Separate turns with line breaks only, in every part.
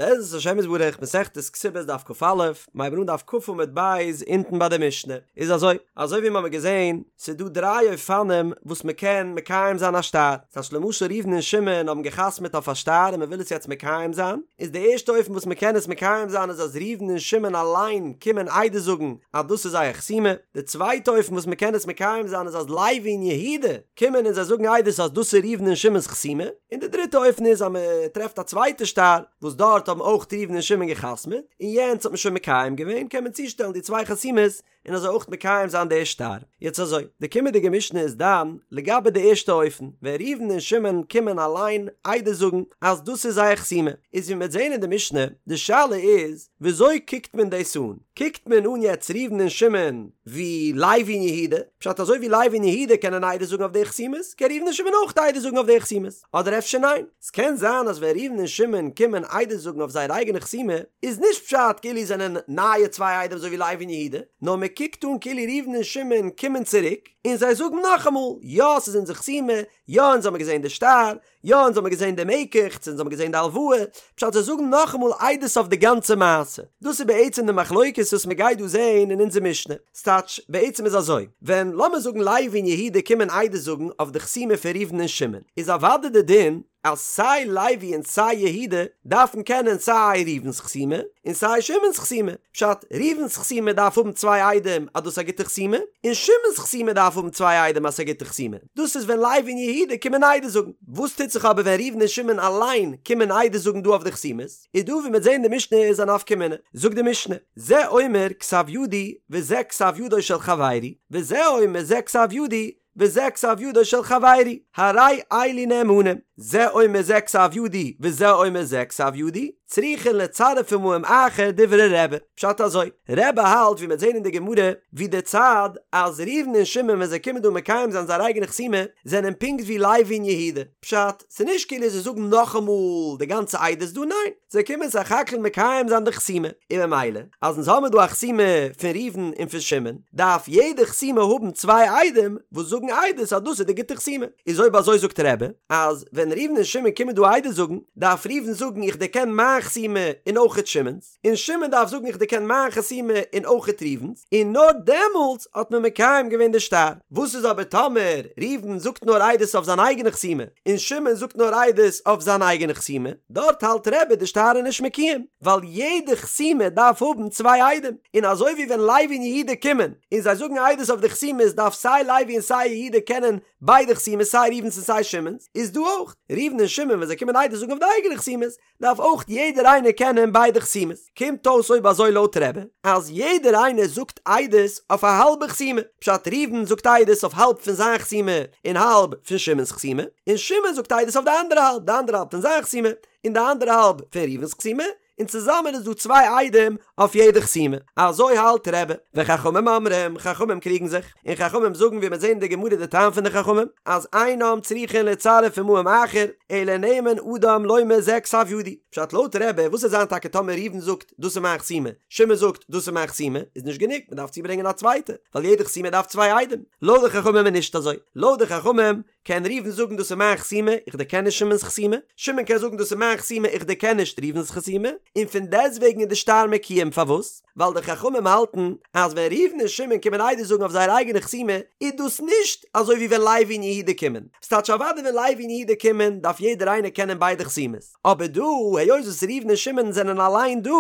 בעזרת השם יתברך מסכת כתובות דף כ"א, מ'הייבן אן דף כ' עמוד ב' אונטן ביי די משנה, איז אזוי, אזוי ווי מ'האמיר געזען, ס'איז דא דריי אופנים וואס מ'קען מקיים זיין א שטר, ס'טייטש למשל ראובן און שמעון האבן גע'חתמ'עט אויף א שטר און מ'וויל עס יעצט מקיים זיין, איז די ערשטע אופן וואס מ'קען עס מקיים זיין איז אז ראובן און שמעון אליין קומען עדות זאגן אז דאס איז זייער חתימה, די צווייטע אופן וואס מ'קען עס מקיים זיין איז אז לוי און יהודה קומען און זיי זאגן עדות אז דאס איז ראובן און שמעון'ס חתימה, און די דריטע אופן איז אז מען טרעפט א צווייטע שטר וואס דארט האבן אויך ראובן און שמעון גע'חתמ'עט, און יענץ האט מען שוין מקיים געווען, קען מען צושטעלן די צוויי חתימות און אזוי אויך מקיים זיין די שטר. יעצט אזוי, די קומענדיגע משנה איז דן לגבי די ערשטע אופן, ווען ראובן און שמעון קומען אליין עדות זאגן אז דאס איז זייער חתימה, איז ווי מען וועט זען אין די משנה, די שאלה איז וויאזוי קוקט מען דאס אן? קוקט מען אן יעצט ראובן און שמעון ווי לוי און יהודה? פשט אזוי ווי לוי און יהודה קענען עדות זאגן אויף די חתימות, קען ראובן און שמעון אויך עדות זאגן אויף די חתימות. אדער אפשר ניין? ס'קען זיין אז ווען ראובן און שמעון קומען עדות זאגן אויף זייער אייגענע חתימה, איז נישט פשט כאילו זענען נייע צוויי עדים אזוי ווי לוי און יהודה, נאר מען קוקט אן כאילו ראובן און שמעון קומען צוריק און זיי זאגן נאכאמאל, יא ס'איז אונזער חתימה, יא אונז האמיר געזען די שטר, יא אונז האמיר געזען די מקח, צו אונז האמיר געזען די הלוואה, פשט זיי זאגן נאכאמאל עדות אויף די גאנצע מעשה. דאס איז בעצם די מחלוקת וואס מען גייט דא זען אין אונזער משנה. ס'טייטש, בעצם איז אזוי, ווען לאמיר זאגן לוי און יהודה קומען עדות זאגן אויף די חתימה פון ראובן און שמעון, איז אוודאי די דין אז סיי לוי און סיי יהודה דארפן קענען סיי ראובן'ס חתימה און סיי שמעון'ס חתימה. פשט, ראובן'ס חתימה דארף האבן צוויי עדים אז דאס איז א גוטע חתימה, און שמעון'ס חתימה דארף האבן צוויי עדים אז ס'איז א גוטע חתימה. דאס איז ווען לוי און יהודה קומען עדות זאגן. וואס טוט זיך אבער ווען ראובן און שמעון אליין קומען עדות זאגן דא אויף די חתימות? איז דא ווי מ'וועט זען די משנה איז א נפקא מינה. זאגט די משנה, זה אומר כתב ידי וזה כתב ידו של חברי, וזה אומר זה כתב ידי וזה כתב ידו של חברי, הרי אלו נאמנים, זה אומר זה כתב ידי וזה אומר זה כתב ידי, צריכין לצרף עמהם אחר דברי רבי. פשט אזוי, רבי האלט ווי מ'וועט זען אין די גמרא, ווי די צד אז ראובן און שמעון ווען זיי קומען דא מקיים זיין זייער אייגענע חתימה, זענען פונקט ווי לוי און יהודה. פשט, ס'נישט כאילו זיי זאגן נאכאמאל די גאנצע עדות דא, ניין, זיי קומען סך הכל מקיים זיין די חתימה, און ממילא אז אונז האמיר דא א חתימה פון ראובן און פון שמעון, דארף יעדע חתימה האבן צוויי עדים וואס זאגן עדות אז דאס איז די גוטע חתימה. איז אויב אזוי זאגט רבי, אז ווען ראובן און שמעון קומען דא עדות זאגן, דארף ראובן זאגן איך דערקען מיין חתימה און אויכעט שמעון'ס, און שמעון דארף זאגן איך דערקען מיין חתימה און אויכעט ראובן'ס, און נאר דעמאלטס האט מען מקיים געווען די שטר. וואס איז אבער טאמער ראובן זאגט נאר עדות אויף זיין אייגענע חתימה, און שמעון זאגט נאר עדות אויף זיין אייגענע חתימה, דארט האלט רבי די שטר איז נישט מקוים, ווייל יעדע חתימה דארף האבן צוויי עדים, און אזוי ווי ווען לוי און יהודה קומען און זיי זאגן עדות אויף די חתימות דארף סיי לוי און סיי יהודה קענען ביידע חתימות סיי ראובן'ס און סיי שמעון'ס, איז דא אויך, ראובן און שמעון ווען זיי קומען עדות זאגן אויף די אייגענע חתימות, דארף אויך יעדער איינער קענען ביידע חתימות. קומט אויס אויב אזוי לויט רבי, אז יעדער איינער זאגט עדות אויף א האלבע חתימה, פשט ראובן זאגט עדות אויף האלב פון זיין חתימה און האלב פון שמעון'ס חתימה, און שמעון זאגט עדות אויף די אנדערע האלב, די אנדערע האלב פון זיין חתימה און די אנדערע האלב פון ראובן'ס חתימה, און צוזאמען איז דא צוויי עדים אויף יעדע חתימה. אזוי האלט רבי. וחכמים אומרים, חכמים קריגן זיך, און חכמים זאגן ווי מיר זעהן אין די גמרא די טעם פון די חכמים, אז אינם צריכין לצרף עמהם אחר, אלא נאמן אדם לומר זה כתב ידי. פשט לויט רבי, וואס וועט זיין טאקע טאמער ראובן זאגט דאס איז מיין חתימה, שמעון זאגט דאס איז מיין חתימה, איז נישט גענוג, מען דארף צוברענגען א צווייטע, ווייל יעדע חתימה דארף צוויי עדים. לויט די חכמים איז נישט אזוי. לויט די חכמים קען ראובן זאגן דאס איז מיין חתימה, איך דערקען נישט שמעון'ס חתימה, שמעון קען זאגן דאס איז מיין חתימה, איך דערקען נישט ראובן'ס חתימה, און פון דעסטוועגן איז די שטר מקוים, פארוואס? ווייל די חכמים האלטן אז ווען ראובן און שמעון קומען עדות זאגן אויף זייער אייגענע חתימה, איז דאס נישט אזוי ווי ווען לוי און יהודה קומען, ס'טייטש אוודאי ווען לוי און יהודה קומען דארף יעדער איינער קענען ביידע חתימות, אבער דא היות וואס ראובן און שמעון זענען אליין דא,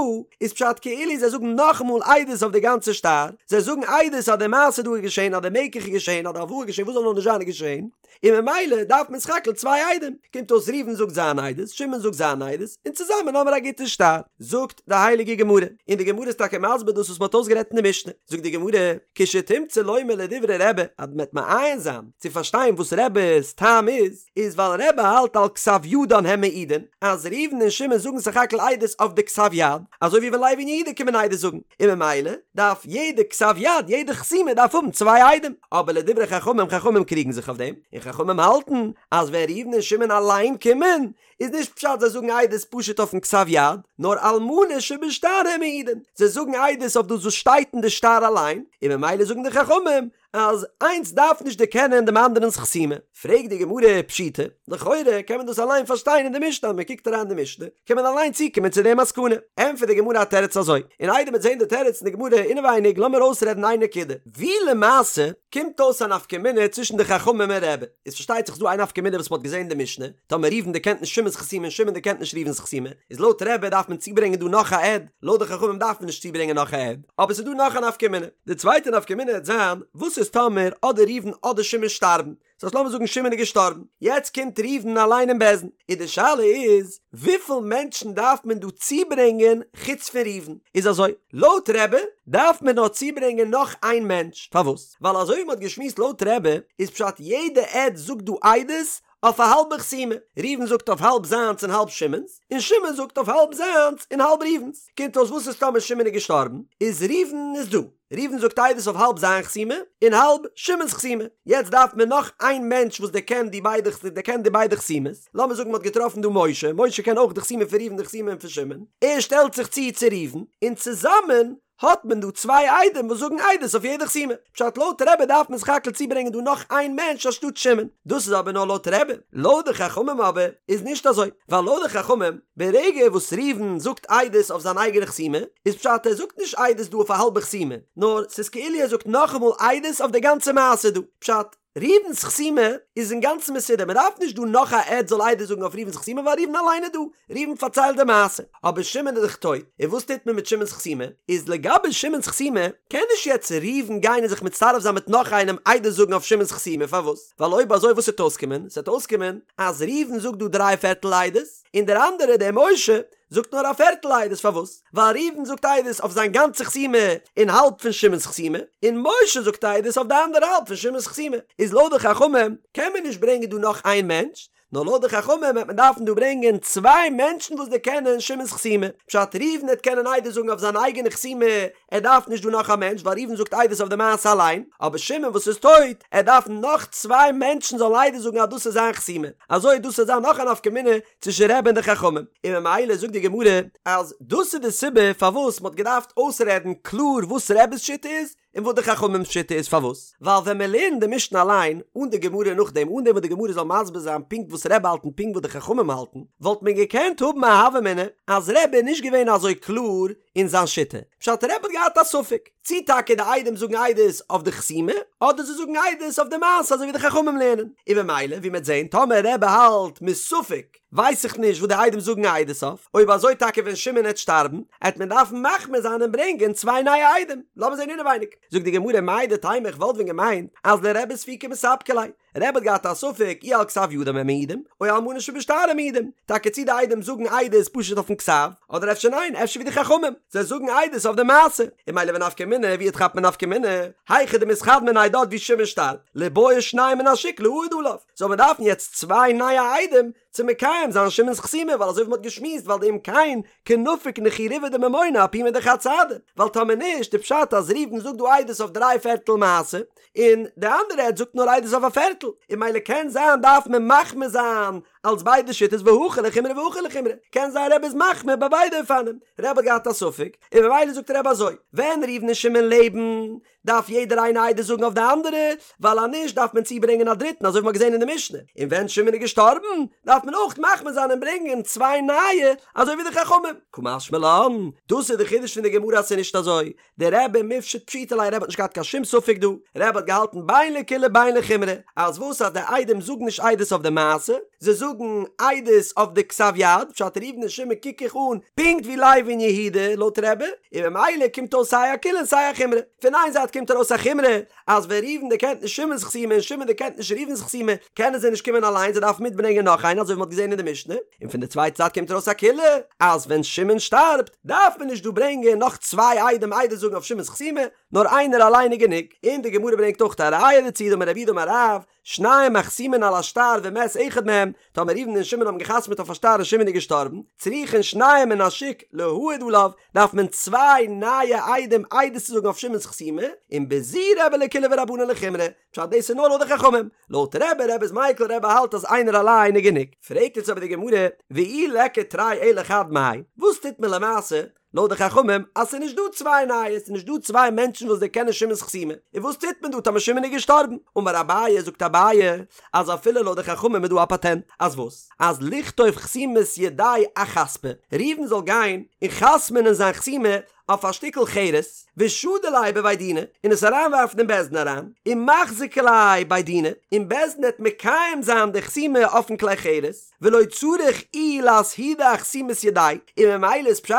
איז פשט כאילו זיי זאגן נאכאמאל עדות אויף די גאנצע שטר, זיי זאגן עדות אז די מעשה דא איז געשען, אז די מקח איז געשען, אז די הלוואה איז געשען, וואס זאל נאר נישט זיין איז געשען, און ממילא דארף מען סך הכל צוויי עדים, קומט אויס ראובן זאגט זיין עדות, שמעון זאגט זיין עדות, און צוזאמען האמער א גוטע שטר. זאגט די הייליגע גמרא, און די גמרא איז טאקע מסביר דאס וואס מען האט אויסגערעדט אין די משנה, זאגט די גמרא, כשתמצא לומר לדברי רבי, אז מען וועט מעיין זיין צו פארשטיין וואס רבי'ס טעם איז, איז ווייל רבי האלט על כתב ידן הם מעידין, אז ראובן און שמעון זאגן סך הכל עדות אויף די כתב יד, אזוי ווי ווען לוי און יהודה קומען עדות זאגן, און ממילא דארף יעדע כתב יד, יעדע חתימה דארף האבן צוויי עדים, אבער לדברי חכמים, חכמים קריגן זיך אויף דעם, און חכמים האלטן אז ווען ראובן און שמעון אליין קומען, איז נישט פשט זיי זאגן עדות פשוט אויפן כתב יד, נאר על מנה שבשטר הם מעידין, זיי זאגן עדות אויף דאס וואס שטייט אין די שטר אליין, און ממילא זאגן די חכמים. אז איינס דארף נישט דערקענען דעם אנדערנ'ס חתימה. פרעגט די גמרא פשיטא, לכאורה קען מען דאס אליין פארשטיין אין די משנה, אז מען קוקט אריין אין די משנה קען מען אליין צוקומען צו די מסקנא. ענטפערט די גמרא א תירוץ אזוי, און איידער מ'וועט זען די תירוץ אין די גמרא אינעווייניג לאמיר אויסרעדן איין נקודה, ווי למעשה קומט אויס א נפקא מינה צווישן די חכמים און רבי, איז פארשטייט זיך ס'דא איין נפקא מינה וואס מ'האט געזען אין די משנה, טאמער ראובן דערקענט נישט שמעון'ס חתימה און שמעון דערקענט נישט ראובן'ס חתימה, איז לויט רבי דארף מען צוברענגען דא נאך א עד, לויט די חכמים דארף מען נישט צוברענגען נאך א עד, אבער ס'איז דא נאך א נפקא מינה. די צווייטע נפקא מינה העט זיין, וואס איז טאמער אדער ראובן אדער שמעון שטארבן? ס'הייסט לאמיר זאגן שמעון איז געשטארבן, יעצט קומט ראובן אליין אין בית דין, און די שאלה איז, וויפיל מענטשן דארף מען דא צוברענגען חוץ פון ראובן? איז אזוי, לויט רבי דארף מען נאר צוברענגען נאך איין מענטש, פארוואס? ווייל אזוי ווי מ'האט געשמועסט לויט רבי איז פשט יעדע עד זאגט דא עדות אויף א האלבע חתימה, ראובן זאגט אויף האלב זיינס און האלב שמעון'ס, און שמעון זאגט אויף האלב זיינס און האלב ראובן'ס, קומט אויס וואס איז טאמער שמעון איז געשטארבן, איז ראובן איז דא, ראובן זאגט עדות אויף האלב זיין חתימה און האלב שמעון'ס חתימה, יעצט דארף מען נאך איין מענטש וואס דערקענט די ביידע דערקענט די ביידע חתימות, לאמיר זאגן מ'האט געטראפן דא משה, משה קען אויך די חתימה פון ראובן די חתימה פון שמעון, ער שטעלט זיך צו צו ראובן, און צוזאמען האט מען דא צוויי עדים וואס זאגן עדות אויף יעדע חתימה. פשט לויט רבי דארף מען סך הכל צוברענגען דא נאך איין מענטש אנשטאט שמעון. דאס איז אבער נאר לויט רבי. לויט די חכמים אבער איז נישט אזוי. ווייל לויט די חכמים, ברגע וואס ראובן זאגט עדות אויף זיין אייגענע חתימה, איז פשט ער זאגט נישט עדות דא אויף א האלבע חתימה, נאר ס'איז כאילו ער זאגט נאכאמאל עדות אויף די גאנצע מעשה דא. פשט, ראובן'ס חתימה איז אינגאנצן מסודר, מען דארף נישט דא נאך א עד זאל עדות זאגן אויף ראובן'ס חתימה ווייל ראובן אליין איז דא, ראובן פארציילט די מעשה, אבער שמעון איז דאך טויט, און וואס טוט מען מיט שמעון'ס חתימה? איז לגבי שמעון'ס חתימה קען נישט יעצט ראובן גיין און זיך מצטרף זיין מיט נאך איינעם עדות זאגן אויף שמעון'ס חתימה, פארוואס? ווייל אויב אזוי וואס וועט אויסקומען? ס'וועט אויסקומען אז ראובן זאגט דא דריי פערטל עדות, און דער אנדערער דער משה זאגט נאר א פערטל עדות פארוואס? ווייל ראובן זאגט עדות אויף זיין גאנצע חתימה און האלב פון שמעון'ס חתימה, און משה זאגט עדות אויף די אנדערע האלב פון שמעון'ס חתימה, איז לויט די חכמים קען מען נישט ברענגען דא נאך איין מענטש, נאר לויט די חכמים וועט מען דארפן דא ברענגען צוויי מענטשן וואס דערקענען שמעון'ס חתימה, פשט ראובן העט קענען עדות זאגן אויף זיין אייגענע חתימה, ער דארף נישט דא נאך א מענטש ווייל ראובן זאגט עדות אויף די מעשה אליין, אבער שמעון וואס איז טויט, ער דארף נאך צוויי מענטשן זאלן עדות זאגן אז דאס איז זיין חתימה, אזוי דאס וועט זיין נאך א נפקא מינה צווישן רבי און די חכמים, און ממילא זאגט די גמרא אז דאס איז די סיבה פארוואס מ'האט געדארפט אויסרעדן קלאר וואס רבי'ס שיטה איז און וואס די חכמים'ס שיטה איז, פארוואס? ווייל ווען מען לערנט די משנה אליין אן די גמרא נאכדעם, אן דעם וואס די גמרא זאל מסביר זיין פונקט וואס רבי האלט און פונקט וואס די חכמים האלטן, וואלט מען געקענט האבן א הוה אמינא אז רבי איז נישט געווען אזוי קלאר אין זיין שיטה, פשט רבי האט געהאט א ספק צי טאקע די עדים זאגן עדות אויף די חתימה אדער זיי זאגן עדות אויף די מעשה אזוי ווי די חכמים לערנען, און ממילא ווי מ'עט זעהן טאמער רבי האלט מספק ווייס איך נישט וואס די עדים זאגן עדות אויף, אויב אזוי טאקע ווען שמעון עט שטארבן עט מען דארפן מחמיר זיין און ברענגען צוויי נייע עדים, לאמיר זעהן אינעווייניג, זאגט די גמרא מהו דתימא איך וואלט ווען געמיינט אז לרבי ספוקי מספקא ליה, רבי האט געהאט א ספק אי על כתב ידם הם מעידים, או על מנה שבשטר הם מעידים, טאקע צי די עדים זאגן עדות פשוט אויפן כתב, אדער אפשר ניין, אפשר ווי די חכמים, זיי זאגן עדות אויף די מעשה, און ממילא ונפקא מינה, ווי כאפט מען נפקא מינה, היכא דמיתחד מיניה דארט ווי שמעון שטארבט, ליבעי שניים מן השוק להעיד עליו, זאל מען דארפן יעצט צוויי נייע עדים צו מקיים זיין שמעון'ס חתימה, ווייל אזוי ווי מ'האט געשמועסט ווייל דאם כן קנפיק נכי ריבעא דממונא אפומא דחד סהדא, ווייל טאמער נישט די פשט אז ראובן זאגט דא עדות אויף דריי פערטל מעשה, און די אנדערע עד זאגט נאר עדות אויף א פערטל, און ממילא קען זיין דארף מען מחמיר זיין אלס ביידע שיטות והכא לחומרא והכא לחומרא, קען זיין רבי איז מחמיר ביי ביידע אופנים, רבי האט געהאט א ספק, און ממילא זאגט רבי אזוי, ווען ראובן און שמעון לעבן, דארף יעדער איינער עדות זאגן אויף די אנדערע, ווייל אז נישט דארף מען צוברענגען א דריטן אזוי ווי מ'האט געזען אין די משנה, און ווען שמעון איז געשטארבן, דארף מען אויך מחמיר זיין און ברענגען צוויי נייע, אזוי ווי די חכמים. קא משמע לן, דאס איז די חידוש פון די גמרא אז ס'איז נישט אזוי, דרבי מפשט פשיטא ליה רבי האט נישט געהאט קיין שום ספק דא, רבי האט געהאלטן בין לקולא בין לחומרא, אז וואס אז די עדים זאגן נישט עדות אויף די מעשה, זיי זאגן עדות אויף די כתב יד, פשט ראובן און שמעון קוק איך אן פונקט ווי לוי און יהודה לויט רבי, און ממילא קומט אויס סיי א קולא און סיי א חומרא, פון איין זייט קומט ארויס א חומרא אז ווען ראובן דערקענט נישט שמעון'ס חתימה און שמעון דערקענט נישט ראובן'ס חתימה קענען זיי נישט קומען אליין זיי דארפן מיטברענגען נאך איינער אזוי ווי מ'האט געזען אין די משנה, און פון די צווייטע זייט קומט ארויס א קולא אז ווען שמעון שטארבט דארף מען נישט דא ברענגען נאך צוויי עדים עדות זאגן אויף שמעון'ס חתימה נאר איינער אליין איז גענוג, און די גמרא ברענגט אויך א ראיה דערצו דאמר רב יהודה אמר רב, שניים החתומין על השטר ומת אחד מהם, טאמער ראובן און שמעון האבן געחתמעט אויף א שטר און שמעון איז געשטארבן, צריכין שניים מן השוק להעיד עליו, דארף מען צוויי נייע עדים עדות צו זאגן אויף שמעון'ס חתימה, און בזו רבי לקולא ורבנן לחומרא, פשט דאס איז נאר לויט די חכמים, לויט רבי, רבי איז מיקל, רבי האלט אז איינער אליין איז גענוג. פרעגט יעצט אבער די גמרא, ואי ליכא תרי אלא חד מאי, וואס טוט מען למעשה? לויט די חכמים אז ס'איז נישט דא צוויי נייע, ס'איז נישט דא צוויי מענטשן וואס דערקענען שמעון'ס חתימה, און וואס טוט מען דא טאמער שמעון איז געשטארבן? אמר אביי, זאגט אביי, אז אפילו לויט די חכמים איז דא א פאטענט, אז וואס? אז לכתוב חתימת ידיה אחספא, ראובן זאל גיין און חתמ'נען זיין חתימה אויף א שטיקל חרס, ושדי ליה בבי דינא, און עס אריינווארפן אין בית דין אריין, ומחזקי ליה בי דינא, און בית דין העט מקיים זיין די חתימה אויפן כלי חרס, ולא צריך איהו לאסהודי אחתימת ידיה, און ממילא איז פשט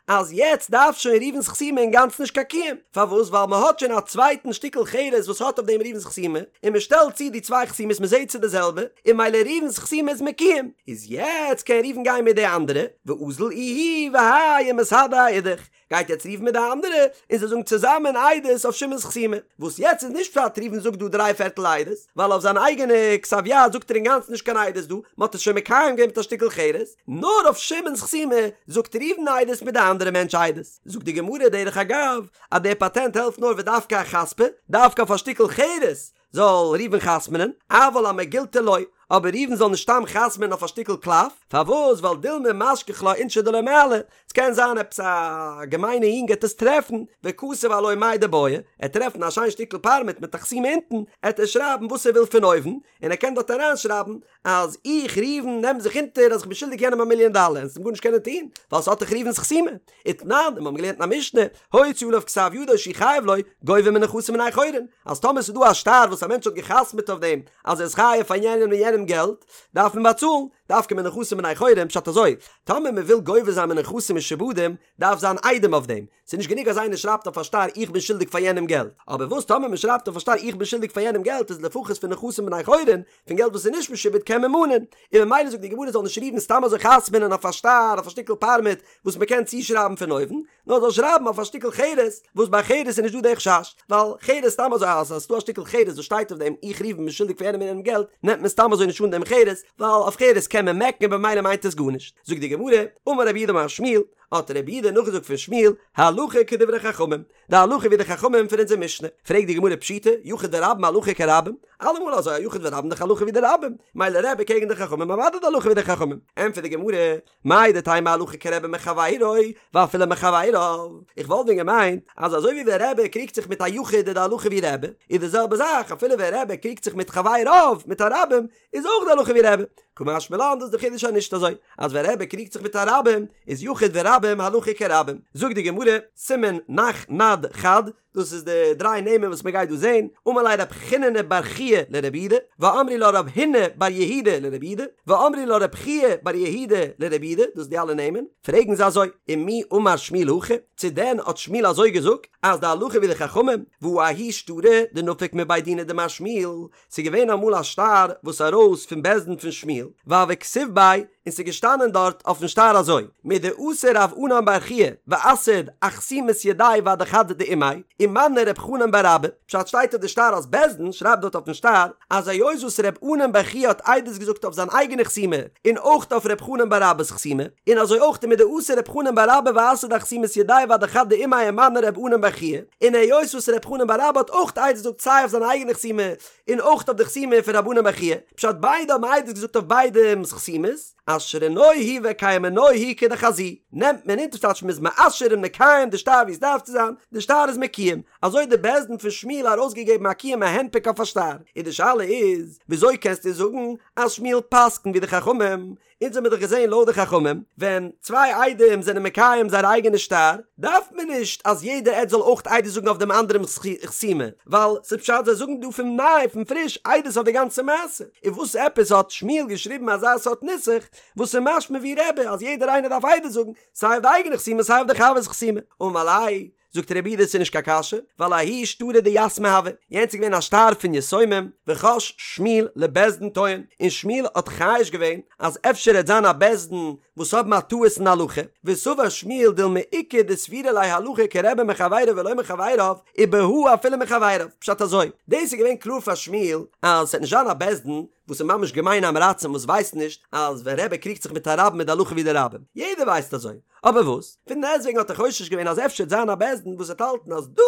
אז יעצט דארף שוין ראובן'ס חתימה אינגאנצן נישט קיין קיום, פארוואס ווייל מען האט שוין א צווייטן שטיקל חרס וואס האט אויף דעם ראובן'ס חתימה, און מען שטעלט צו די צוויי חתימות מען זעט ס'איז די זעלבע, און ממילא ראובן'ס חתימה איז מקוים, איז יעצט קען ראובן גיין מיט די אנדערע, ואזיל איהו והאי ומסהדי אאידך, גייט יעצט ראובן מיט די אנדערע און זיי זאגן צוזאמען עדות אויף שמעון'ס חתימה, וואס יעצט איז נישט פשט ראובן זאגט דא דריי פערטל עדות, ווייל אויף זיין אייגענע כתב יד זאגט ער אינגאנצן נישט קיין עדות דא, מען האט עס שוין מקיים געווען מיט א שטיקל חרס, נאר אויף שמעון'ס חתימה זאגט ראובן עדות מיט די אנדערע מענטש עדות. זאגט די גמרא דרך אגב אז דער פאטענט העלפט נאר ודווקא אחספא, דווקא אויף א שטיקל חרס זאל ראובן חתמ'נען, אבל אמגילתא לא, אבער ראובן זאל נישט סתם חתמ'נען אויף א שטיקל קלף, פארוואס? ווייל דילמא משכח לה אינשי דלא מעלי, ס'קען זיין עפעס א געמיינע יונג העט עס טרעפן, וכתב עילויה מאי דבעי, ער העט טרעפן א שיין שטיקל פארמעט מיט א חתימה אונטן, העט ער שרייבן וואס ער וויל פון אויבן, און ער קען דארט אריינשרייבן אז איך ראובן נעם זיך אונטער אז איך בין שולדיג יענעם א מיליאן דאלער און ס'וועט גארנישט קענען טון ווייל ס'האט דאך ראובן'ס חתימה. ותנן, און מ'האבן געלערנט אין א משנה, הוציא עליו כתב ידו שהוא חייב לו, גובה מנכסים בני חורין, אז טאמער ס'איז דא א שטר וואס א מענטש האט גע'חתמ'עט אויף דעם אז ער איז חייב פאר יענעם און יענעם געלט, דארף מען באצאלן, דווקא מנכסים בני חורין, פשט אזוי, טאמער מ'וויל גובה זיין מנכסים משועבדים, דארף זיין עדים אויף דעם, ס'איז נישט גענוג אז איינער שרייבט אויף א שטר איך בין שולדיג פאר יענעם געלט, אבער וואס טאמער מען שרייבט אויף א שטר איך בין שולדיג פאר יענעם געלט איז לפחות פון נכסים בני חורין, פון געלט וואס איז נישט משועבד קען מען מאנען, און ממילא זאגט די גמרא זאל נישט ראובן סתם אזוי חתמ'נען אויף א שטר אויף א שטיקל פארמעט וואס מען קען צושרייבן פון אויבן, נאר זאל שרייבן אויף א שטיקל חרס וואס ביי חרס איז נישט דא די חשש, ווייל חרס סתם אזוי אז עס איז דא א שטיקל חרס וואס שטייט אויף דעם איך ראובן בין שולדיג פאר יענעם און יענעם געלט נעמט מען סתם אזוי נישט אן דעם חרס, ווייל אויף חרס קען מען מעקן און במילא מיינט עס גארנישט. זאגט די גמרא, אמר רב יהודה אמר שמואל, האט רב יהודה נאכגעזאגט פון שמואל, הלכה כדברי חכמים, די הלכה ווי די חכמים פון אונזער משנה, פרעגט די גמרא פשיטא, יחיד ורבים הלכה כרבים, אלעמאל אזוי א יחיד ורבים דאך הלכה ווי די רבים, מילא רבי קעגן די חכמים אוודאי די הלכה ווי די חכמים, ענטפערט די גמרא, מהו דתימא הלכה כרבי מחבירו ואפילו מחביריו, איך וואלט ווען געמיינט אז אזוי ווי ווען רבי קריגט זיך מיט א יחיד איז די הלכה ווי רבי, איז די זעלבע זאך אפילו ווען רבי קריגט זיך מיט חבריו, מיט א רבים, איז אויך די הלכה ווי רבי. קא משמע לן דאס איז די חידוש אז נישט אזוי אז ווען רבי קריגט זיך מיט א רבים איז יחיד ורבים הלכה כרבים. זאגט די גמרא, סימן נח נד חד, דאס איז די דריי נעמען וואס מען גייט דא זען, אמר ליה רב חיננא בר חייא לרב יהודה, ואמרי לה רב הונא בר יהודה לרב יהודה, ואמרי לה רב חייא בר יהודה לרב יהודה, דאס איז די אלע נעמען, פרעגן זיי אזוי, ומי אמר שמואל הכי, צו דען האט שמואל אזוי געזאגט אז די הלכה ווי די חכמים, והא ההוא שטרא דנפק מבי דינא דמר שמואל, ס'איז געווען אמאל א שטר וואס ארויס פון בית דין פון שמואל, והוה כתיב ביה, און ס'איז געשטאנען דארט אויפן שטר אזוי, מדאתא רב ענן בר חייא ואסהיד אחתימת ידיה ואדחד דאימיה, ומני רב חנן בר אבא, פשט שטייט אויף די שטר אז בית דין שרייבט דארט אויפן שטר אז היות וואס רב ענן בר חייא האט עדות געזאגט אויף זיין אייגענע חתימה און אויך אויף רב חנן בר אבא'ס חתימה, און אזוי אויך מדאתא רב חנן בר אבא ואסהיד אחתימת ידיה ואדחד דאימיה ומני רב ענן בר חייא, און היות וואס ר' חנן בר אבא האט אויך עדות געזאגט סיי אויף זיין אייגענע חתימה און אויך אויף די חתימה פון רב ענן בר חייא, פשט ביידע האבן עדות געזאגט אויף ביידעמ'ס חתימות, אשרנוהו וקיימנוהו כדחזי, נעמט מען אונטער ס'טייטש מ'איז מאשר און מקיים די שטר ווי עס דארף צו זיין, די שטר איז מקוים, אזוי האט די בית דין פון שמואל ארויסגעגעבן א קיום א הנפק אויף א שטר, און די שאלה איז, וויאזוי קענסטו זאגן אז שמואל פסק'נט ווי די חכמים, אונז האמיר דאך געזען לויט די חכמים, ווען צוויי עדים זענען מקיים זייער אייגענע שטר, דארף מען נישט אז יעדער עד זאל אויך עדות זאגן אויף דעם אנדערעמ'ס חתימה, ווייל ס'איז פשט זיי זאגן דא פון ניי, פון פריש, עדות אויף די גאנצע מעשה. און וואס עפעס האט שמואל געשריבן אזא סארט נוסח, וואס איז משמע ווי רבי אז יעדער איינער דארף עדות זאגן, סיי אויף די אייגענע חתימה סיי אויף די חבר'ס חתימה. אמר ליה, זאגט רב יהודה ס'איז נישט קיין קשיא, ווייל ההוא שטרא דיתמי הוה, יענץ איז געווען א שטר פון יתומים, וחש שמואל לבית דין טועין, און שמואל האט חושש געווען אז אפשר העט זיין א בית דין וואס האבן א טעות אין הלכה, וסבר שמואל דילמא איכא דסבירא ליה הלכה כרבי מחבירו ולא מחבריו, ובהא אפילו מחבריו, פשט אזוי, דאס איז געווען קלאר פאר שמואל אז ס'עט נישט זיין א בית דין. וואס איז ממש געמיינע עם הארצים וואס ווייסט נישט אז ווען רבי קריגט זיך מיט א רבים איז די הלכה ווי די רבים, יעדער ווייסט אזוי, אבער וואס? פון דעסטוועגן האט ער חושש געווען אז אפשר וועט זיין א בית דין וואס וועט האלטן אז דא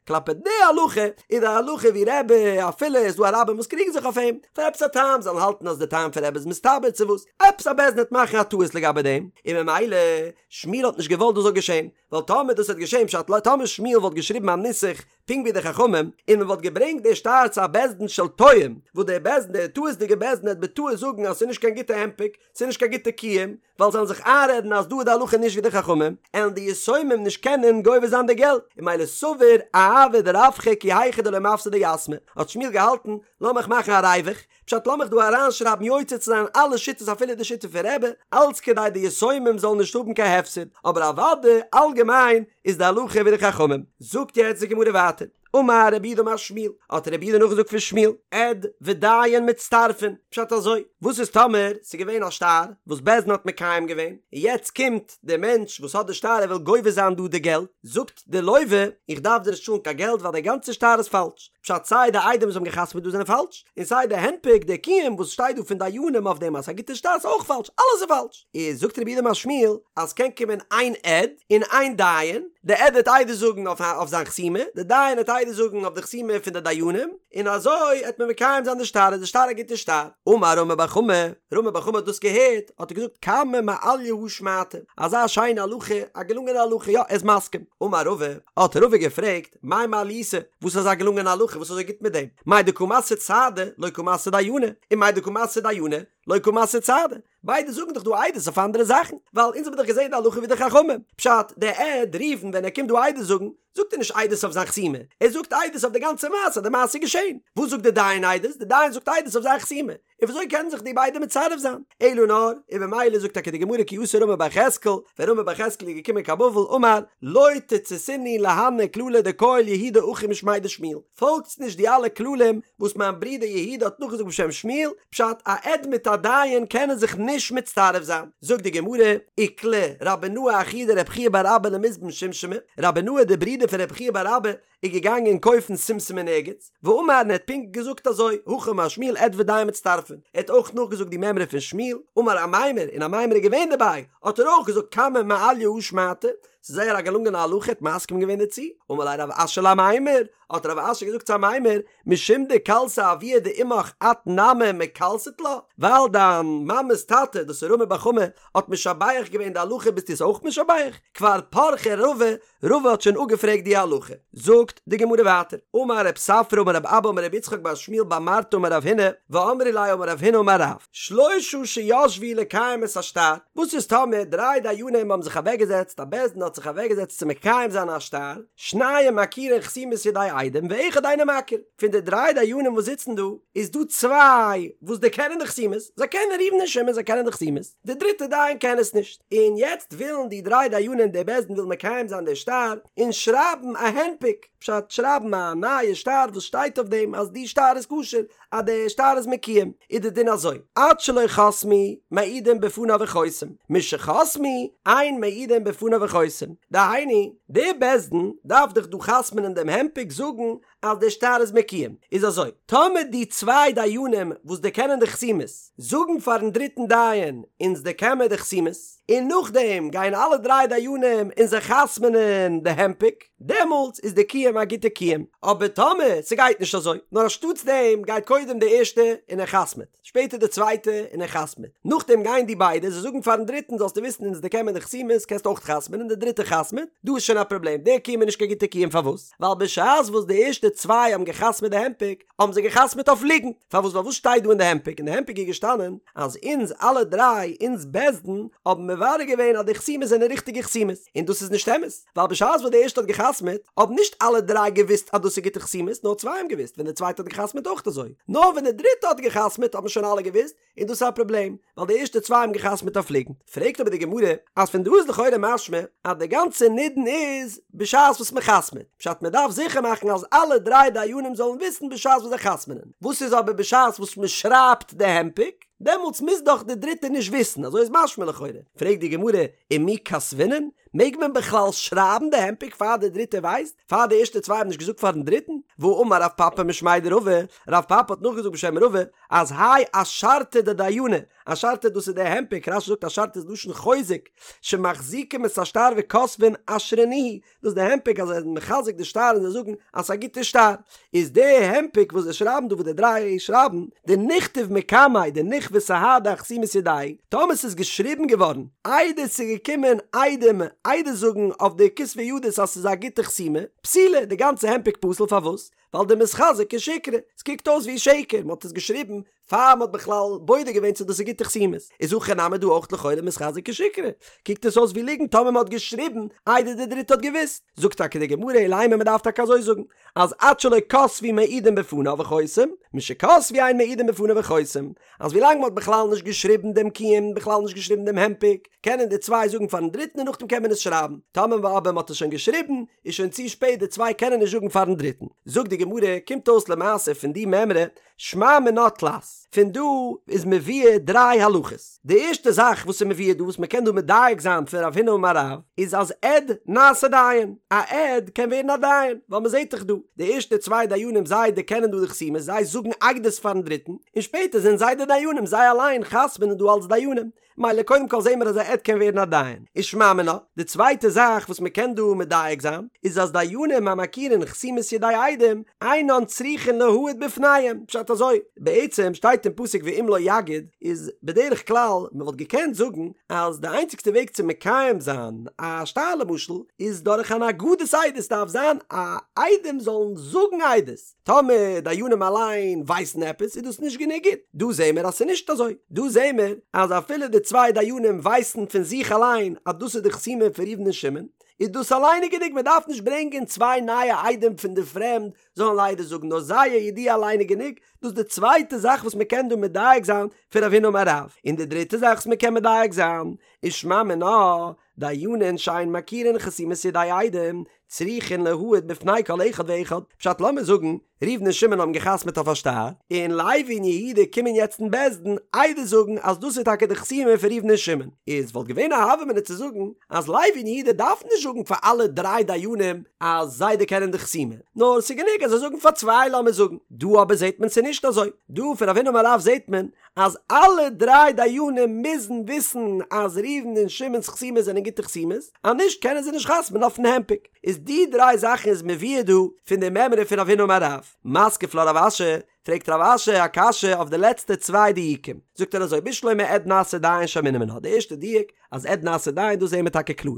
כלפי די הלכה איז די הלכה ווי רבי אפילו איז דא א רבים וואס קריגן זיך אויף אים פאר עפעס א טעם זאלן האלטן אז די טעם פון רבי איז מסתבר צו וואס עפעס א בית דין וועט מאכן א טעות לגבי דעם און ממילא שמואל האט נישט געוואלט דאס זאל געשען ווייל טאמער דאס וועט געשען פשט טאמער שמואל וואלט געשריבן א נוסח פונקט ווי די חכמים און מען וואלט געברענגט די שטר צו א בית דין של טועים וואס דער בית דין דער טעות'דיגער בית דין וועט בטעות זאגן אז ס'איז נישט קיין גוטע הנפק ס'איז נישט קיין גוטע קיום ווייל זיי וועלן זיך איינרעדן אז דא איז די הלכה נישט ווי די חכמים, עלן די יתומים נישט קענען גובה זיין די געלט, און ממילא סבר אעביד רווחא כי היכי דלא מפסדי יתמי, האט שמואל געהאלטן, לאמיך מאכן א ריווח, פשט לאמיך דא אריינשרייבן יוצא צו זיין אלע שיטות אפילו די שיטה פון רבי, אלץ כדי די יתומים זאלן נישט האבן קיין הפסד, אבער אוודאי אלגעמיין איז די הלכה ווי די חכמים. זאגט יעצט די גמרא ווייטער. אמר רב יהודה אמר שמואל, האט רב יהודה נאכגעזאגט פון שמואל, עד ודיין מצטרפין, פשט אזוי, וואס איז טאמער ס'איז געווען א שטר וואס בית דין האט מקיים געווען, און יעצט קומט דער מענטש וואס האט די שטר ער וויל גובה זיין דא די געלט, זאגט די לוה, איך דארף דיר נישט צאלן קיין געלט ווייל דער גאנצער שטר איז פאלש, פשט סיי די עדים וואס האבן געחתמעט דא זענען פאלש, און סיי די הנפק, די קיום וואס שטייט דא פון דיינים אויף דעם אז ס'איז א גוטע שטר איז אויך פאלש, אלעס איז פאלש. איז זאגט רב יהודה אמר שמואל אז ס'קען קומען איין עד און איין דיין, די עד וועט עדות זאגן אויף זיין חתימה, די דיין וועט עדות זאגן אויף די חתימה פון די דיינים, און אזוי העט מען מקיים זיין די שטר, איז די שטר א גוטע שטר. אמר רמי בר חמא, רמי בר חמא האט דאס געהערט, האט ער געזאגט כמה מעליא הא שמעתא, אזא שיינע הלכה, א געלונגענע הלכה, יא ער איז מסכים. אמר רבא, האט רבא געפרעגט, מאי מעליותא, וואס איז אזא געלונגענע הלכה, וואס איז אזוי גוט מיט דעם? מאי דקא מסרי סהדי, לא קא מסרי דייני, און מאי דקא מסרי דייני, לא קא מסרי סהדי. ביידע זאגן דאך דא עדות אויף אנדערע זאכן, ווייל אונז האבן דאך געזען די הלכה ווי די חכמים. פשט, דער עד ראובן ווען ער קומט דא עדות זאגן, זאגט ער נישט עדות אויף זיין חתימה, ער זאגט עדות אויף די גאנצע מעשה אז די מעשה איז געשען. וואס זאגט דער דיין עדות? דער דיין זאגט עדות אויף זיין חתימה. און וויאזוי קענען זיך די ביידע מצרף זיין? אלא נאר, און במילא זאגט טאקע די גמרא כי אתא רמי בר יחזקאל, ווען רמי בר יחזקאל איז געקומען קיין בבל אמר, לא תציתינהו להני כללי דכייל יהודה אחי משמיה דשמואל, פאלגטס נישט די אלע כללים וואס מיין ברודער יהודה האט נאכגעזאגט בשם שמואל, פשט, א עד מיט א דיין קענען זיך נישט מצטרף זיין. זאגט די גמרא, איקלע רבי נאה אחוה דרב חייא בר אבא למזבן שומשמי, רבי נאה דער ברודער פון רב חייא בר אבא איז געגאנגען קויפן שומשום אין ערגעץ, ואמר און ער האט פונקט געזאגט אזוי, הכי אמר שמואל עד ודיין מצטרפין, ער האט אויך נאכגעזאגט די מימרא פון שמואל, אמר אמימר, און אמימר איז געווען דערביי, האט ער אויך געזאגט כמה מעליא הא שמעתא, ס'איז זייער א געלונגענע הלכה, ער האט מסכים געווען דערצו, אמר ליה רב אשי לאמימר, האט רב אשי געזאגט צו אמימר, משום דקלסה אבוה דאמך את נמי מקלסת לה, ווייל דיין מאמע'ס טאטע, דאס איז רמי בר חמא, האט משבח געווען די הלכה ביסטו עס אויך משבח? כבר פרכה רבא, רבא האט שוין אפגעפרעגט די הלכה. זאגט די גמרא ווייטער, אמר רב ספרא אמר רב אבא אמר רבי יצחק בר שמואל בר מרתא אמר רב הונא, ואמרי לה אמר רב הונא אמר רב, שלושה שישבו לקיים את השטר, וואס איז טאמער דריי דיינים האבן זיך אוועקגעזעצט, א בית דין האט זיך אוועקגעזעצט צו מקיים זיין א שטר, שניים מכירין חתימות ידי עדים ואחד אינו מכיר, פון די דריי דיינים וואס זיצן דא, איז דא צוויי וואס דערקענען די חתימות, זיי קענען ראובן און שמעון זיי קענען די חתימות, די דריטע דיין קען עס נישט, און יעצט ווילן די דריי דיינים די בית דין וויל מקיים זיין די שטר, און שרייבן א הנפק, פשט שרייבן א נייע שטר וואס שטייט אויף דעם אז די שטר איז כשר, אז די שטר איז מקוים, איז די דין אזוי, עד שלא חתמו מעידין בפניו וחותם, משחתמו אין מעידין בפניו וחותם, דהיינו, די בית דין דארף דאך דא חתמ'נען דעם הנפק זאגן אז די שטר איז מקוים, איז אזוי, טאמער די צוויי דיינים וואס דערקענען די חתימות זאגן פארן דריטן דיין אונז דערקען מיר די חתימות, און נאכדעם גייען אלע דריי דיינים און זיי חתמ'נען די הנפק, דעמאלטס איז די קיום א גוטע קיום, אבער טאמער ס'גייט נישט אזוי, נאר אנשטאטס דעם גייט קודם די ערשטע און ער חתמ'עט, שפעטער די צווייטע און ער חתמ'עט, נאכדעם גייען די ביידע, זיי זאגן פארן דריטן זאלסטו וויסן אונז דערקען מיר די חתימות קענסט אויך חתמ'ען און די דריטע חתמ'עט, דא איז שוין א פראבלעם, דער קיום איז נישט קיין גוטע קיום פארוואס? ווייל בשעת וואס די ערשטע צוויי האבן געחתמ'עט די הנפק, האבן זיי געחתמ'עט אויף ליגנט, פארוואס ווייל וואס שטייט דא אין די הנפק, אין די הנפק איז געשטאנען אז אונז אלע דריי, אונז בית דין, האבן מברר געווען אז די חתימות זענען ריכטיגע חתימות, און דאס איז נישט אמת, ווייל בשעת וואס די ערשטע האט געחתמ'עט, האבן נישט אלע דריי געוואוסט אז דאס איז גוטע חתימות, נאר צוויי האבן געוואוסט, ווען די צווייטע האט געחתמ'עט אויך אזוי, נאר ווען די דריטע האט געחתמ'עט האבן שוין אלע געוואוסט, און דאס איז א פראבלעם, ווייל די ערשטע צוויי האבן געחתמ'עט אויף ליגנט. פרעגט אבער די גמרא, אז פון דא איז לכאורה משמע אז די גאנצע נידון איז בשעת וואס מען חתמ'עט, פשט מען דארף זיכער מאכן אז אלע דריי דיינים זאלן וויסן בשעת וואס זיי חתמ'נען, וואס איז אבער בשעת וואס מען שרייבט די הנפק, דעמאלטס מוז דאך די דריטע נישט וויסן, אזוי איז משמע לכאורה. פרעגט די גמרא, ומי כתבינן? מעג מען בכלל שרייבן די הנפק פאר די דריטע ווייסט? פאר די ערשטע צוויי האבן נישט געזאגט פארן דריטן? והאמר רב פפא משמיה דרבא, רב פפא האט נאכגעזאגט בשם רבא, אז האי אשרתא דדייני, אשרתא דאס איז די הנפק, רש"י זאגט אשרתא איז לשון חוזק, שמחזיקים את השטר וכותבין אשרנוהו, דאס איז די הנפק אז זיי זענען מחזק די שטר און זיי זאגן אז ס'איז א גוטע שטר, איז די הנפק וואס זיי שרייבן דא וואס די דריי שרייבן, דניכתוב מקמיה דנכוו סהדי אחתימת ידייהו, טאמער ס'איז געשריבן געווארן איידער ס'איז געקומען עדים עדות זאגן אויף די כתבי ידות אז ס'איז א גוטע חתימה, פסולה, די גאנצע הנפק פסול פארוואס? ווייל דמיתחזי כשיקרא, ס'קוקט אויס ווי שקר, מ'האט עס געשריבן פאר מ'האט בכלל בודק געווען צו דאס איז גוטע חתימות, איז הכא נמי דא אויך לכאורה מיתחזי כשיקרא, קוקט עס אויס ווי ליגנט טאמער מ'האט געשריבן איידער די דריטע האט געוואוסט, זאגט טאקע די גמרא אלא אימא מ'דארף טאקע אזוי זאגן אז עד שלא כתבו מעידין בפניו וחותם, משכתבו אין מעידין בפניו וחותם, אז ווילאנג מ'האט בכלל נישט געשריבן דעם קיום, בכלל נישט געשריבן דעם הנפק, קענען די צוויי זאגן פארן דריטן און נאכדעם קען מען עס שרייבן, טאמער אבער מ'האט עס שוין געשריבן, איז שוין צו שפעט די צוויי קענען נישט זאגן פארן דריטן. זאגט די גמרא, קומט אויס למעשה פון די מימרא, שמע מינה תלת, פון דא איז מבואר דריי הלכות. די ערשטע זאך וואס איז מבואר דא וואס מ'קען דא מדייק זיין פון רב הונא אמר רב, איז אז עד נעשה דיין, א עד קען ווערן א דיין, ווייל מ'זעט דאך דא, די ערשטע צוויי דיינים זיי דערקענען דא די חתימות, זיי זאגן עדות פארן דריטן, און שפעטער זענען זיי די דיינים, זיי אליין חתמ'נען דא אלס דיינים. מילא קודם כל זעהן מיר אז א עד קען ווערן א דיין, איז שמע מינה, די צווייטע זאך וואס מען קען דא מדייק זיין, איז אז דיינים המכירין חתימת ידי עדים, אינן צריכין להעיד בפניהם, פשט אזוי, בעצם שטייט אין פסוק ואם לא יגיד, איז בדרך כלל מען וואלט געקענט זאגן אז די איינציגסטע וועג צו מקיים זיין א שטר למשל, איז דורך אן הגדת עדות, דארף זיין א עדים זאלן זאגן עדות. טאמער דיינים אליין ווייסן עפעס איז דאס נישט גענוג גוט, דא זעהן מיר אז ס'איז נישט אזוי, דא זעהן מיר אז אפילו די צוויי דיינים ווייסן פון זיך אליין אז דאס איז די חתימה פון ראובן און שמעון, איז דאס אליין איז גענוג, מען דארף נישט ברענגען צוויי נייע עדים פון די פרעמד זאלן עדות זאגן, נאר זייער ידיעה אליין איז גענוג, דאס איז די צווייטע זאך וואס מען קען דא מדייק זיין פון רב הונא אמר רב, און די דריטע זאך וואס מען קען מדייק זיין איז שמע מינה, דיינין שאין מכירין חתימת ידי עדים, צריכין להעיד בפני כל אחד ואחד, פשט לאמיר זאגן, ראובן און שמעון האבן געחתמעט אויף א שטר, און לוי און יהודה קומען יעצט אין בית דין עדות זאגן אז דאס איז טאקע די חתימה פון ראובן און שמעון, איז וואלט געווען א הוה אמינא צו זאגן אז לוי און יהודה דארפן נישט זאגן פאר אלע דריי דיינים אז זיי דערקענען די חתימה, נאר ס'איז גענוג אז זיי זאגן פאר צוויי לאמיר זאגן, דא אבער זעט מען ס'איז נישט אזוי, דא פון רב הונא אמר רב זעט מען אז אלע דריי דיינים מוזן וויסן אז ראובן און שמעון'ס חתימות זענען גוטע חתימות, אז נישט קענען זיי נישט חתמ'ן אויפן הנפק. איז די דריי זאכן איז מבואר דא פון די מימרא פון רב הונא אמר רב. מתקיף לה רב אשי, פרעגט רב אשי א קשיא אויף די לעצטע צוויי דיוקים. זאגט ער אזוי בשלמא עד נעשה דיין שמעינן מינה, די ערשטע דיוק אז עד נעשה דיין דאס זעהן מיר טאקע קלאר.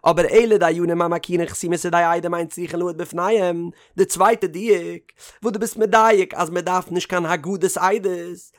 אבער אלא דיינים המכירין חתימת ידי עדים אין צריכין להעיד בפניהם, די צווייטע דיוק, וואס דו ביסט מדייק אז מען דארף נישט קיין הגדת עדות,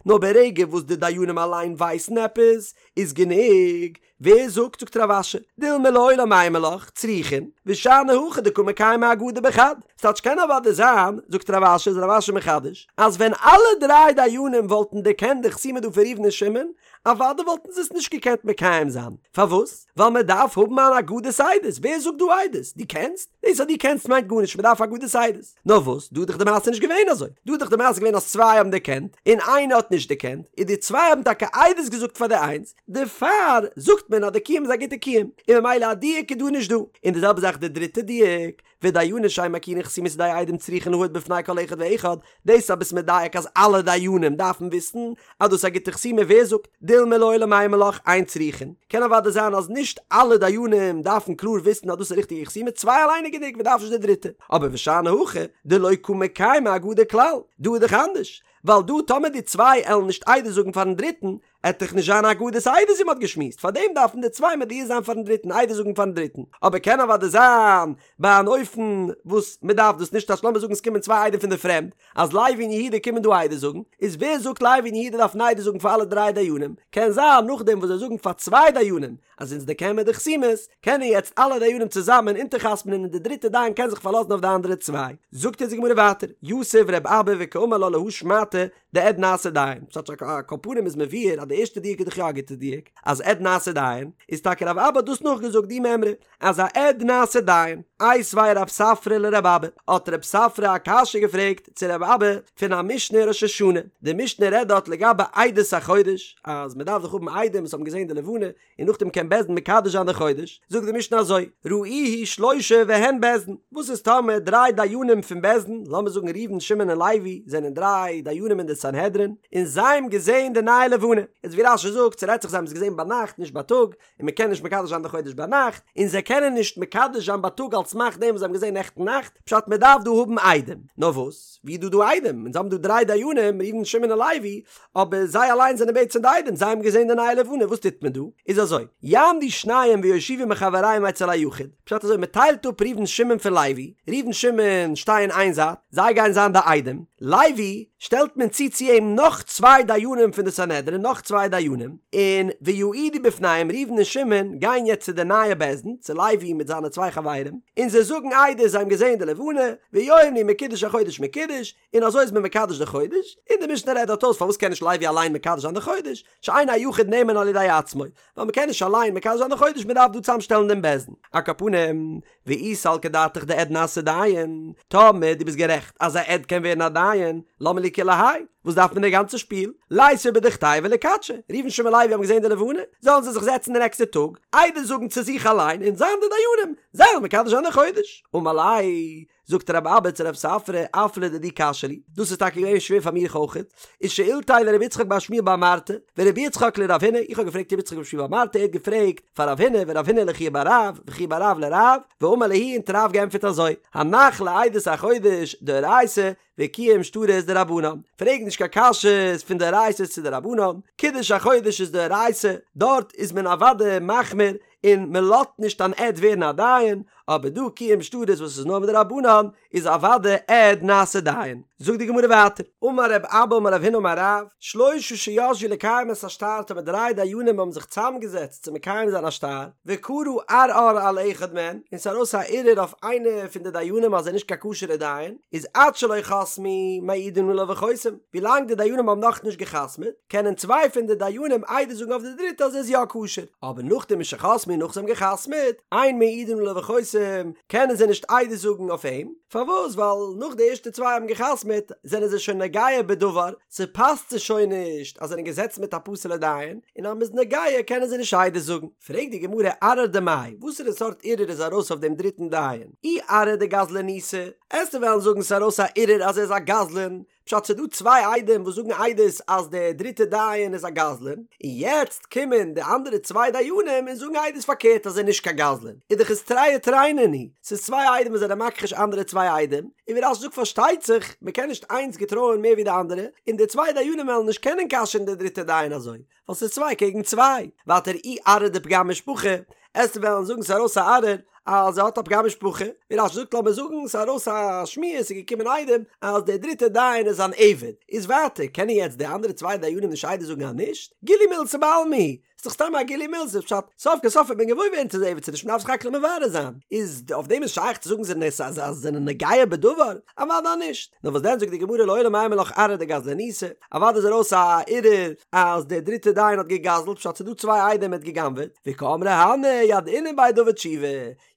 נאר ברגע וואס די דיינים אליין ווייסן עפעס, איז גענוג, ווער זאגט, זאגט רב אשי, דילמא לעולם אימא לך, צריכין, ושאני הכא דקא מקיימי הגדה בחד. ס'טייטש קען אוודאי זיין, זאגט רב אשי, איז רב אשי מחדש, אז ווען אלע דריי דיינים וואלטן דערקענט די חתימה דא פון ראובן און שמעון, אוודאי וואלטן זיי עס נישט געקענט מקיים זיין. פארוואס? ווייל מען דארף האבן אן הגדת עדות. ווער זאגט דא עדות? דו קענסט? דאס אז דו קענסט מיינט גארנישט, מען דארף הגדת עדות. נאר וואס, דא איז דאך די מעשה נישט געווען אזוי. דא איז דאך די מעשה געווען אז צוויי האבן דערקענט, און איינער האט נישט דערקענט, און די צוויי האבן טאקע עדות געזאגט פאר די איינס, דערפאר זאגט מען אז די קיום איז א גוטע קיום, און ממילא א דיוק איז דא נישט דא. און די זעלבע זאך די דריטע דיוק, ודיינין שאין מכירין חתימת ידי עדים צריכין להעיד בפני כל אחד ואחד, דאס אז ביסט מדייק אז אלע דיינים דארפן וויסן אז דאס איז א גוטע חתימה ווער זאגט דילמא לעולם אימא לך אין צריכין, קען אוודאי זיין אז נישט אלע דיינים דארפן קלאר וויסן אז דאס איז ריכטיגע חתימה צוויי אליין איז גענוג מען דארף נישט די דריטע, אבער ושאני הכא דלא קא מקיימי הגדה כלל, דא איז דאך אנדערש ווייל דא טאמער די צוויי עלן נישט עדות זאגן פארן דריטן עט דאך נישט זיין הגדת עדות ווי מ'האט געשמועסט, פארדעם דארפן די צוויי מודיע זיין פארן דריטן, עדות זאגן פארן דריטן, אבער קען אוודאי זיין ביי אן אופן וואס מ'דארף דאס נישט, אז לאמיר זאגן עס קומען צוויי עדים פון די פרעמד, אז לוי און יהודה קומען דא עדות זאגן, איז ווער זאגט לוי און יהודה דארפן עדות זאגן פאר אלע דריי דיינים, קען זיין נאכדעם וואס זיי זאגן פאר צוויי דיינים אז אונז דערקען מיר די חתימות, קענען יעצט אלע דיינים צוזאמען אונטערחתמ'נען און די דריטע דיין קען זיך פארלאזן אויף די אנדערע צוויי. זאגט אונז די גמרא ווייטער, יתיב ר' אבא וקאמר לה להא שמעתא, דעד נעשה דיין, ס'טייטש על כל פנים איז מבואר אז אז די ערשטע דיוק איז דאך יא א גוטע דיוק, אז עד נעשה דיין, איז טאקע רב אבא האט דאס נאכגעזאגט די מימרא, אז א עד נעשה דיין. איתיביה רב ספרא לרב אבא, האט רב ספרא א קשיא געפרעגט צו רב אבא פון א משנה אין ראש השנה, די משנה רעדט דארט לגבי עדות החודש, אז מען דארף דאך האבן עדים וואס האבן געזען די לבנה, און נאכדעם קען בית דין מקדש זיין די חודש, זאגט די משנה אזוי, ראוהו שלושה והן בית דין, וואס איז טאמער דריי דיינים פון בית דין, לאמיר זאגן ראובן שמעון און לוי זענען דריי דיינים אין די סנהדרין, און זיי האבן געזען די נייע לבנה, איז ווי רש"י זאגט, ס'רעדט זיך זיי האבן עס געזען ביינאכט נישט בייטאג, און מען קען נישט מקדש זיין די חודש ביינאכט, און זיי קענען נישט מקדש זיין בייטאג על סמך דעם וואס זיי האבן געזען נעכטן נאכט, פשט מען דארף דא האבן עדים, נאר וואס, ווי איז דא דא עדים, אונז האבן דא דריי דיינים, ראובן שמעון און לוי, אבער זיי אליין זענען בעצם די עדים, זיי האבן געזען די נייע לבנה, וואס טוט מען דא? איז אזוי, יעמדו שניים ויושיבו מחבריהם אצל היחיד, פשט אזוי, מען טיילט אפ ראובן שמעון פון לוי, ראובן שמעון שטייען איין זייט, זיי גייען זיין די עדים, לוי שטעלט מען צו צו אים נאך צוויי דיינים פון די סנהדרין, נאך צוויי דיינים, און ויעידו בפניהם, ראובן און שמעון גייען יעצט צו די נייע בית דין, צו לוי מיט זיינע צוויי חברים, און זיי זאגן עדות זיי האבן געזען די לבנה, ויאמרו מקודש החודש מקודש, און אזוי איז מען מקדש די חודש, און די משנה רעדט דארט אויס פארוואס קען נישט לוי אליין מקדש זיין די חודש, שאין היחיד נאמן על ידי עצמו, ווייל מ'קען נישט אליין מקדש זיין די חודש מ'דארף דא צוזאמשטעלן דעם בית דין. על כל פנים, ואי סלקא דעתך דעד נעשה דיין, טאמער דו ביסט גערעכט אז א עד קען ווערן א דיין, למה לי כולי האי? וואס דארף מען די גאנצע שפיל? ליתבו בדוכתייהו וליקדשו, ראובן שמעון לוי האבן געזען די לבנה, זאלן זיי זיך זעצן די נעקסטע טאג, עדות זאגן צו זיך אליין און זיין די דיינים, זיי וועלן מקדש זיין די חודש. אמר ליה, זאגט רב אבא צו רב ספרא, אף לדידי קשיא לי, דאס איז טאקע געווען שווער פאר מיך אויכעט, איז שאילתיה לרבי יצחק בר שמואל בר מרתא, ורבי יצחק לרב הונא, איך האב געפרעגט רבי יצחק בר שמואל בר מרתא, ער האט געפרעגט פאר רב הונא, ורב הונא לחייא בר רב, וחייא בר רב לרב, ואמר להו און האט רב געענטפערט אזוי, הנח לעדות החודש דאורייתא, וקיום שטרות דרבנן, פרעג נישט קיין קשיות פון דאורייתא'ס צו דרבנן, קידוש החודש איז דאורייתא, דארט איז מען אוודאי מחמיר, און מען לאזט נישט אן עד ווערן א דיין, אבער דא קיום שטרות וואס איז נאר מדרבנן, איז אוודאי עד נעשה דיין. זאגט די גמרא ווייטער, אמר רב אבא אמר רב הונא אמר רב, שלושה שישבו לקיים את השטר טאמער דריי דיינים האבן זיך צוזאמגעזעצט צו מקיים זיין א שטר, וקרא ערער על אחד מהן, און ס'איז ארויס א ערעור אויף איינע פון די דיינים אז ער איז נישט קיין כשר'ער דיין, איז עד שלא חתמו מעידין עליו וחותם, ווילאנג די דיינים האבן נאכנישט גע'חתמ'עט, קענען צוויי פון די דיינים עדות זאגן אויף די דריטע אז ער איז יא כשר, אבער נאכדעם משחתמו נאך זיי האבן גע'חתמ'עט, אין מעידין עליו וחותם, קענען זיי נישט עדות זאגן אויף אים, פארוואס? ווייל נאך די ערשטע צוויי האבן גע'חתמ'עט זענען זיי שוין נוגע בדבר, ס'פאסט זיי שוין נישט אז זיי זענען געזעצן מיט א פסול'ע דיין, און אז מ'איז נוגע קענען זיי נישט עדות זאגן. פרעגט די גמרא ערער דמאי, וואסערע סארט ערעור איז ארויס אויף דעם דריטן דיין? אי ערער דגזלניתא, עסטו וועלן זאגן ס'איז ארויס א ערעור אז ער איז א גזלן, פשט ס'דא צוויי עדים וואס זאגן עדות אז דער דריטער דיין איז א גזלן, און יעצט קומען די אנדערע צוויי דיינים און זאגן עדות פארקערט אז ער איז נישט קיין גזלן, איז דאך עס תרי ותרי נינהו, ס'איז צוויי עדים וואס זענען מכחיש אנדערע צוויי עדים, און ווי רש"י זאגט פארשטייט זיך מ'קען נישט איינס געטרויען מער ווי די אנדערע, און די צוויי דיינים וועלן נישט קענען כשר'ן די דריטע דיין אזוי, ווייל ס'איז צוויי קעגן צוויי, ווייטער אי ערער דפגם משפחה, עסטו וועלן זאגן ס'איז ארויס א ערער אז ער האט א פגם משפחה, ווי רש"י זאגט לאמיר זאגן ס'איז ארויס א שמועה ס'איז געקומען עדים אז דער דריטער דיין איז אן עבד, איז ווייטער קענען יעצט די אנדערע צוויי דיינים נישט עדות זאגן אז נישט, גילוי מילתא בעלמא היא, ס'איז דאך סתם א גילוי מילתא, פשט, סוף כל סוף וועט מען געוואויר ווערן צו ס'איז עבד צו נישט מ'דארף זיך האקלען מברר זיין, איז אויף דעם איז שייך צו זאגן זיי זענען אז זיי זענען נוגע בדבר? אוודאי נישט, נאר וואס דען זאגט די גמרא לעולם אימא לך ערער דגזלניתא, אוודאי איז ארויס א ערעור אז דער דריטער דיין האט גע'גזל'ט פשט ס'איז דא צוויי עדים ער האט גע'גנב'עט, וקאמרי הני ידעינן ביה דעבד תשובה,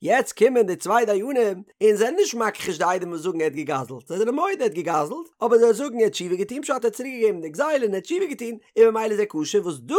יעצט קומען די צוויי דיינים און זענען נישט מכחיש די עדים וואס זאגן ער האט גע'גזל'ט, זיי זענען מודה ער האט גע'גזל'ט, אבער זיי זאגן ער האט תשובה געטון פשט ער האט צוריק געגעבן די גזילה און ער האט תשובה געטון און ממילא איז ער כשר וואס דא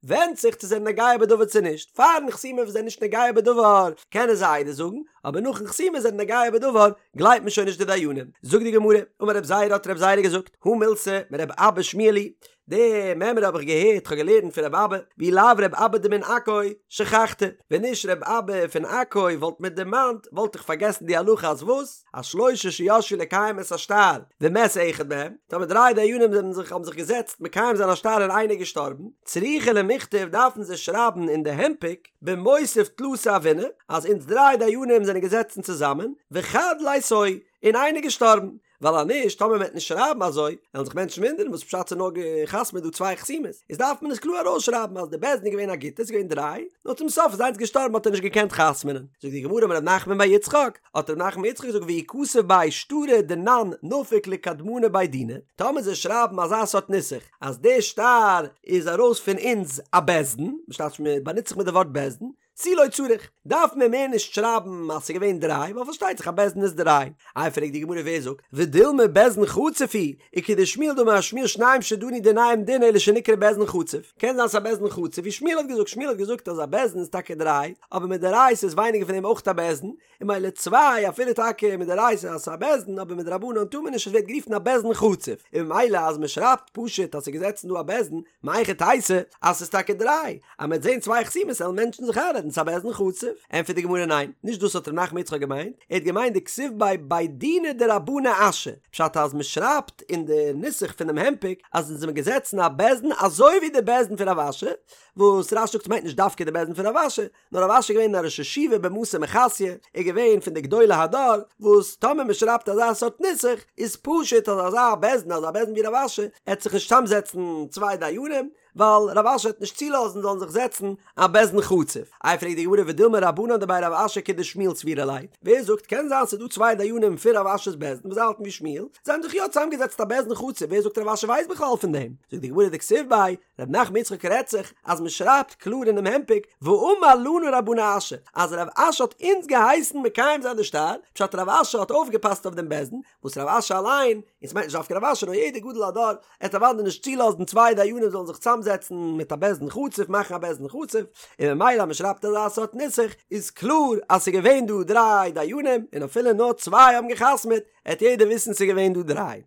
ווענדט זיך צו זענען נוגע בדבר צו נישט, פארן חתימה וואס זענען נישט נוגע בדבר קענען זיי עדות זאגן, אבער נאכן חתימה זענען נוגע בדבר גלייבט מען שוין נישט די דיינים. זאגט די גמרא, אמר רב זירא האט רב זירא געזאגט, הא מילתא מרב אבא שמיע לי, די מימרא האב איך געהערט, כ'האב געלערנט פון רב אבא, ואי לאו רב אבא דמן עכו שכחתא, ווען נישט רב אבא פון עכו וואלט מיר דערמאנט, וואלט איך פארגעסן די הלכה אז וואס? אז שלושה שישבו לקיים את השטר ומת אחד מהם, טאמער דריי דיינים זענען זיך האבן זיך געזעצט מקיים זיין א שטר און איינער איז געשטארבן, צריכי למיכתב דארפן זיי שרייבן אין די הנפק במותיב תלתא הוינא אז אונז דריי דיינים זענען געזעצן צוזאמען, וחד ליתוהי, און איינער איז געשטארבן. ווייל אז נישט, טאמער מ'עט נישט שרייבן אזוי, וועלן זיך מענטשן וואונדערן וואס פשט ס'איז נאר גע'חתמ'עט דא צוויי חתימות, איז דארף מען עס קלאר ארויסשרייבן אז די בית דין איז געווען א גוטע, ס'איז געווען דריי, נאר צום סוף איז איינס געשטארבן האט ער נישט געקענט חתמ'נען. זאגט די גמרא אמר ר' נחמן בר יצחק, האט ר' נחמן בר יצחק געזאגט ואי כתב ביה שטרא דנן נפיק לקדמנא בי דינא, טאמער זיי שרייבן אזא סארט נוסח אז די שטר איז ארויס פון אונז א בית דין, מ'שטייט מ'באנוצט זיך מיט די ווארט בית דין, תו לא צריך, דארף מען מער נישט שרייבן אז ס'איז געווען דריי, ווייל פארשטייט זיך א בית דין איז דריי. איי פרעגט די גמרא ווער זאגט, ודילמא בית דין חצוף הוא, וכדשמואל דאמר שמואל שניים שדנו דיניהם דין אלא שנקרא בית דין חצוף, קען זיין ס'איז א בית דין חצוף ווי שמואל האט געזאגט, שמואל האט געזאגט אז א בית דין איז טאקע דריי, אבער מדאורייתא איז ווייניגער פון דעם אויך א בית דין, און ממילא צוויי אפילו טאקע מדאורייתא אז ס'איז א בית דין אבער מדרבנן טאר מען נישט עס ווערט גערופן א בית דין חצוף און ממילא אז מען שרייבט פשוט אז ס'איז געזעצן דא א בית דין מהיכי תיתי אז ס'איז טאקע דריי אז מ'וועט זעהן צוויי חתימות וועלן מענטשן זיך איינרעדן ס'איז א בית דין חצוף ענטפערט די גמרא ניין נישט דאס האט ר' נחמן יצחק געמיינט ער האט געמיינט דכתיב ביה בי דינא דרבנא אשי פשט אז מען שרייבט אין די נוסח פונעם הנפק אז אונז זעמיר געזעצן א בית דין אזוי ווי די בית דין פון רב אשי וואס רש"י זאגט ס'מיינט נישט דווקא די בית דין פון רב אשי נאר רב אשי איז געווען א ראש ישיבה במתא מחסיא, ער איז געווען פון די גדולי הדור, וואס טאמער מען שרייבט אזא סארט נוסח, איז פשוט אז אזא בית דין, אזא בית דין ווי רב אשי, עט זיך נישט צאמזעצן צוויי דיינים, ווייל רב אשי וועט נישט צולאזן זאלן זיך זעצן א בית דין חצוף. איי פרעגט די גמרא ודילמא רבנן דבי רב אשי כדשמואל סבירא להו, ווער זאגט קען זיין ס'איז דא צוויי דיינים פון רב אשי'ס בית דין וואס זיי האלטן ווי שמואל, זיי האבן זיך יא צאמגעזעצט א בית דין חצוף, ווער זאגט רב אשי ווייסט בכלל פון דעם? זאגט די גמרא דכתיב ביה, ר' נחמן יצחק רעדט זיך אז מען שרייבט קלאר אינעם הנפק ואמר לנו רבנא אשי אז רב אשי האט אונז געהייסן מקיים זיין די שטר, פשט רב אשי האט אויפגעפאסט אויף דעם בית דין, וואס רב אשי אליין, און ס'מיינט נישט דווקא רב אשי נאר יעדער גדול הדור, עט אוודאי נישט צולאזן צוויי דיינים זאלן זיך צאמזעצן מיט א בית דין חצוף מאכן א בית דין חצוף, און ממילא אז מען שרייבט אזא סארט נוסח איז קלאר אז ס'איז געווען דא דריי דיינים און אפילו נאר צוויי האבן גע'חתמ'עט, עט יעדער וויסן ס'איז געווען דא דריי.